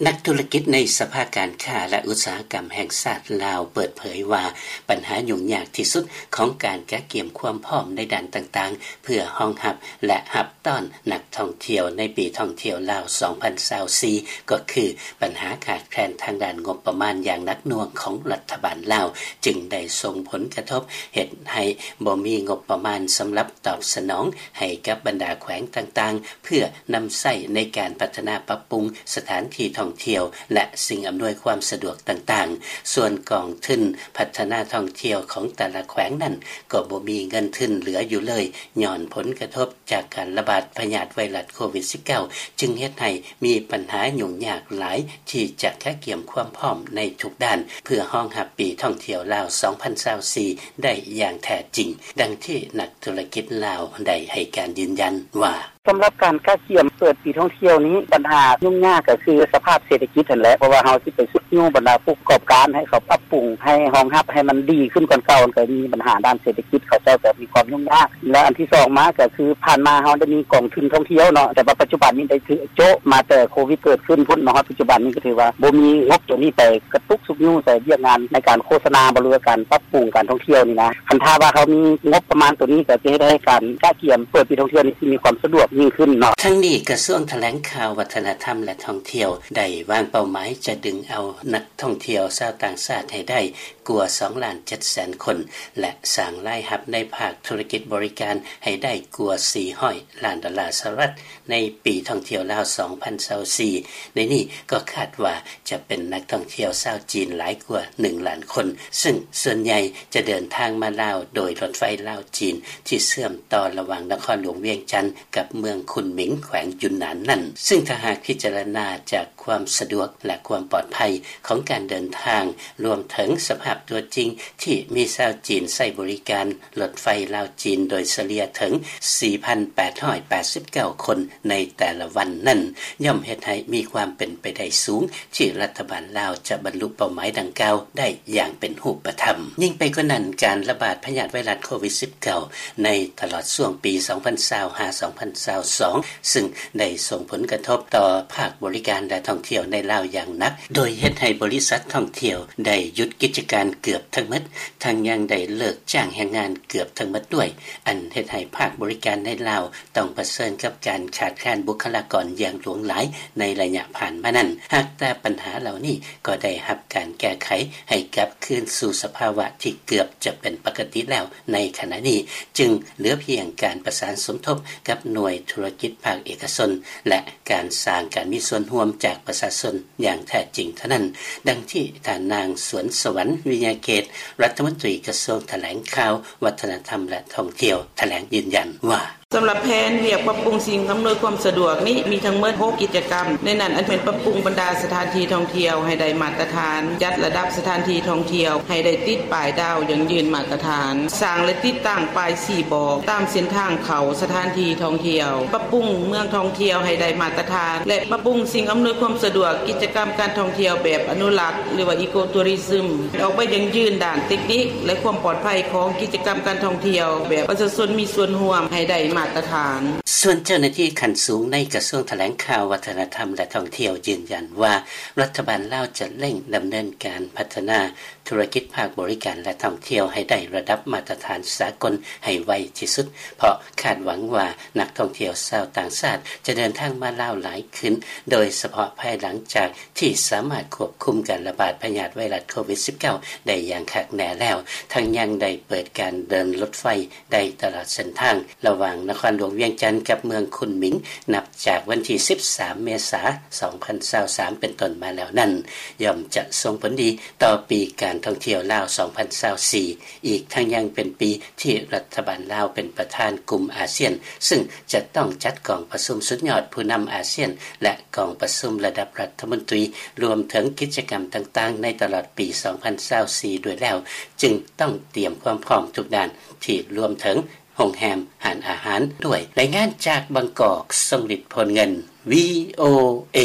ນັກທຸລະກິດໃນສະພາການຄ້າ ແລະ ອຸດສາຫະກຳແຫ່ງຊາດລາວ ເປີດເຜີຍວ່າ ບັນຫາຫຍຸ້ງຍາກທີ່ສຸດຂອງການກະກຽມຄວາມພ້ອມໃນດ້ານຕ່າງໆ ເພື່ອຮອງຮັບ ແລະ ຮັບຕ້ອນນັກທ່ອງທ່ຽວໃນປີທ່ອງທ່ຽວລາວ ສອງພັນຊາວສີ່ ກໍຄືບັນຫາຂາດແຄນທາງດ້ານງົບປະມານຢ່າງໜັກໜ່ວງຂອງລັດຖະບານລາວ ຈຶ່ງໄດ້ສົ່ງຜົນກະທົບເຮັດໃຫ້ບໍ່ມີງົບປະມານສຳລັບຕອບສະໜອງໃຫ້ກັບບັນດາແຂວງຕ່າງໆ ເພື່ອນຳໃຊ້ໃນການພັດທະນາປັບປຸງສະຖານທີ່ທ່ອງທ່ຽວ ແລະ ສິ່ງອຳນວຍຄວາມສະດວກຕ່າງໆ. ສ່ວນກອງທຶນພັດທະນາທ່ອງທ່ຽວຂອງແຕ່ລະແຂວງນັ້ນ ກໍບໍ່ມີເງິນທຶນເຫຼືອຢູ່ເລີຍ ຍ້ອນຜົນກະທົບຈາກການລະບາດພະຍາດໄວຣັສໂຄວິດສິບເກົ້າ ຈຶ່ງເຮັດໃຫ້ມີບັນຫາຫຍຸ້ງຍາກຫຼາຍ ທີ່ຈະກະກຽມຄວາມພ້ອມໃນທຸກດ້ານ ເພື່ອຮອງຮັບປີທ່ອງທ່ຽວລາວ ສອງພັນຊາວສີ່ ໄດ້ຢ່າງແທ້ຈິງ, ດັ່ງທີ່ນັກທຸລະກິດລາວໄດ້ໃຫ້ການຢືນຢັນວ່າ: ສຳລັບການກະກຽມເປີດປີທ່ອງທ່ຽວນີ້ ບັນຫາຫຍຸ້ງຍາກກໍຄືສະພາບເສດຖະກິດຫັ້ນແຫຼະ, ເພາະວ່າເຮົາຊິໄປຊຸກຍູ້ບັນດາຜູ້ປະກອບການໃຫ້ເຂົາປັບປຸງ ໃຫ້ຮອງຮັບໃຫ້ມັນດີຂຶ້ນກວ່າເກົ່າ, ມັນກໍມີບັນຫາດ້ານເສດຖະກິດ, ເຂົາເຈົ້າກໍມີຄວາມຫຍຸ້ງຍາກ. ແລະ ອັນທີສອງມາກໍຄືຜ່ານມາເຮົາໄດ້ມີກອງທຶນທ່ອງທ່ຽວເນາະ, ແຕ່ວ່າປັດຈຸບັນນີ້ໄດ້ຖືກໂຈະມາແຕ່ໂຄວິດເກີດຂຶ້ນພຸ້ນ ມາຮອດປັດຈຸບັນນີ້ກໍຖືວ່າບໍ່ມີງົບໂຕນີ້ໄປກະຕຸກຊຸກຍູ້ໃສ່ວຽກງານໃນການໂຄສະນາບໍ ຫຼືວ່າການປັບປຸງການທ່ອງທ່ຽວນີ້ນະ. ຄັນຖ້າວ່າເຮົາມີງົບປະມານໂຕນີ້ ກໍຈະເຮັດໃຫ້ການກະກຽມເປີດປີທ່ອງທ່ຽວນີ້ຊິມີຄວາມສະດວກຍິ່ງຂຶ້ນເນາະ. ທັງນີ້ ກະຊວງຖະແຫຼງຂ່າວ ວັດທະນະທຳ ແລະ ທ່ອງທ່ຽວ ໄດ້ວາງເປົ້າໝາຍຈະດຶງເອົານັກທ່ອງທ່ຽວຊາວຕ່າງຊາດໃຫ້ໄດ້ກວ່າສອງລ້ານເຈັດແສນຄົນ ແລະ ສ້າງລາຍຮັບໃນພາກທຸລະກິດບໍລິການໃຫ້ໄດ້ກວ່າສີ່ຮ້ອຍລ້ານດອນລາສະຫະລັດ ໃນປີທ່ອງທ່ຽວລາວ ສອງພັນຊາວສີ່. ໃນນີ້ກໍຄາດວ່າຈະເປັນນັກທ່ອງທ່ຽວຊາວຈີນຫຼາຍກວ່າໜຶ່ງລ້ານຄົນ, ຊຶ່ງສ່ວນໃຫຍ່ຈະເດີນທາງມາລາວໂດຍລົດໄຟລາວ-ຈີນ ທີ່ເຊື່ອມຕໍ່ລະຫວ່າງນະຄອນຫຼວງວຽງຈັນກັບເມືອງຄຸນໝິງ ແຂວງຢຸນນານນັ້ນ. ຊຶ່ງຖ້າຫາກພິຈາລະນາຈາກຄວາມສະດວກ ແລະ ຄວາມປອດໄພຂອງການເດີນທາງ, ລວມເຖິງສະພາບຕົວຈິງທີ່ມີຊາວຈີນໃຊ້ບໍລິການ ລົດໄຟລາວ-ຈີນໂດຍສະເລ່ຍເຖິງສີ່ພັນແປດຮ້ອຍແປດສິບເກົ້າຄົນໃນແຕ່ລະວັນນັ້ນ ຍ່ອມເຮັດໃຫ້ມີຄວາມເປັນໄປໄດ້ສູງ ທີ່ລັດຖະບານລາວຈະບັນລຸເປົ້າໝາຍດັ່ງກ່າວໄດ້ຢ່າງເປັນຮູບປະທຳ. ຍິ່ງໄປກວ່ານັ້ນ, ການລະບາດພະຍາດໄວຣັສໂຄວິດສິບເກົ້າ ໃນຕະຫຼອດຊ່ວງປີສອງພັນຊາວ ຫາ ສອງພັນຊາວສອງ ຊຶ່ງໄດ້ສົ່ງຜົນກະທົບຕໍ່ພາກບໍລິການ ແລະ ທ່ອງທ່ຽວໃນລາວຢ່າງໜັກ, ໂດຍເຮັດໃຫ້ບໍລິສັດທ່ອງທ່ຽວໄດ້ຢຸດກິດຈະການເກືອບທັງໝົດ, ທັງຍັງໄດ້ເລີກຈ້າງແຮງງານເກືອບທັງໝົດດ້ວຍ, ອັນເຮັດໃຫ້ພາກບໍລິການໃນລາວຕ້ອງປະເຊີນກັບການຂາດແຄນບຸກຄະລາກອນຢ່າງຫຼວງຫຼາຍໃນໄລຍະຜ່ານມານັ້ນ. ຫາກແຕ່ບັນຫາເຫຼົ່ານີ້ກໍໄດ້ຮັບການແກ້ໄຂໃຫ້ກັບຄືນສູ່ສະພາວະທີ່ເກືອບຈະເປັນປົກກະຕິແລ້ວໃນຂະນະນີ້, ຈຶ່ງເຫຼືອພຽງການປະສານສົມທົບກັບໜ່ວຍທຸລະກິດພາກເອກະຊົນ ແລະ ການສ້າງການມີສ່ວນຮ່ວມຈາກປະຊາຊົນຢ່າງແທ້ຈິງເທົ່ານັ້ນ, ດັ່ງທີ່ທ່ານນາງ ສວນສະຫວັນ ວິຍາເກດ ລັດຖະມົນຕີກະຊວງຖະແຫຼງຂ່າວ ວັດທະນະທຳ ແລະ ທ່ອງທ່ຽວ ຖະແຫຼງຢືນຢັນວ່າ: ສຳລັບແຜນວຽກປັບປຸງສິ່ງອຳນວຍຄວາມສະດວກນີ້ ມີທັງໝົດຫົກກິດຈະກຳ, ໃນນັ້ນອັນເປັນປັບປຸງບັນດາສະຖານທີ່ທ່ອງທ່ຽວໃຫ້ໄດ້ມາດຕະຖານ, ຈັດລະດັບສະຖານທີ່ທ່ອງທ່ຽວໃຫ້ໄດ້ຕິດປ້າຍດາວຢັ້ງຢືນມາດຕະຖານ, ສ້າງ ແລະ ຕິດຕັ້ງປ້າຍຊີ້ບອກຕາມເສັ້ນທາງເຂົ້າສະຖານທີ່ທ່ອງທ່ຽວ, ປັບປຸງເມືອງທ່ອງທ່ຽວໃຫ້ໄດ້ມາດຕະຖານ ແລະ ປັບປຸງສິ່ງອຳນວຍຄວາມສະດວກກິດຈະກຳການທ່ອງທ່ຽວແບບອະນຸລັກ ຫຼືວ່າ Eco Tourism ອອກໄປຢັ້ງຢືນດ້ານເຕັກນິກ ແລະ ຄວາມປອດໄພຂອງກິດຈະກຳການທ່ອງທ່ຽວແບບປະຊາຊົນມີສ່ວນຮ່ວມໃຫ້ໄດ້ມາດຕະຖານ. ສ່ວນເຈົ້າໜ້າທີ່ຂັ້ນສູງໃນກະຊວງຖະແຫຼງຂ່າວ ວັດທະນະທຳ ແລະ ທ່ອງທ່ຽວ ຢືນຢັນວ່າ ລັດຖະບານລາວຈະເລັ່ງດຳເນີນການພັດທະນາທຸລະກິດພາກບໍລິການ ແລະ ທ່ອງທ່ຽວໃຫ້ໄດ້ລະດັບມາດຕະຖານສາກົນໃຫ້ໄວທີ່ສຸດ, ເພາະຄາດຫວັງວ່ານັກທ່ອງທ່ຽວຊາວຕ່າງຊາດຈະເດີນທາງມາລາວຫຼາຍຂຶ້ນ, ໂດຍສະເພາະພາຍຫຼັງຈາກທີ່ສາມາດຄວບຄຸມການລະບາດພະຍາດໄວຣັສໂຄວິດສິບເກົ້າ ໄດ້ຢ່າງຄັກແນ່ແລ້ວ, ທັງຍັງໄດ້ເປີດການເດີນລົດໄຟ ໄດ້ຕະຫຼອດເສັ້ນທາງລະຫວ່າງນະຄອນຫຼວງວຽງຈັນກັບເມືອງຄຸນໝິງ ນັບຈາກວັນທີສິບສາມ ເມສາ ສອງພັນຊາວສາມ ເປັນຕົ້ນມາແລ້ວນັ້ນ ຍ່ອມຈະສົ່ງຜົນດີຕໍ່ປີການທ່ອງທ່ຽວລາວ ສອງພັນຊາວສີ່ ອີກທັງຍັງເປັນປີທີ່ລັດຖະບານລາວເປັນປະທານກຸ່ມອາຊຽນ, ຊຶ່ງຈະຕ້ອງຈັດກອງປະຊຸມສຸດຍອດຜູ້ນຳອາຊຽນ ແລະ ກອງປະຊຸມລະດັບລັດຖະມົນຕີ, ລວມເຖິງກິດຈະກຳຕ່າງໆໃນຕະຫຼອດປີ ສອງພັນຊາວສີ່ ດ້ວຍແລ້ວ, ຈຶ່ງຕ້ອງຕຽມຄວາມພ້ອມທຸກດ້ານ ທີ່ລວມເຖິງໂຮງແຮມ, ຮ້ານອາຫານດ້ວຍ. ລາຍງານຈາກບາງກອກ, ຊົງລິດ ໂພນເງິນ ວີໂອເອ.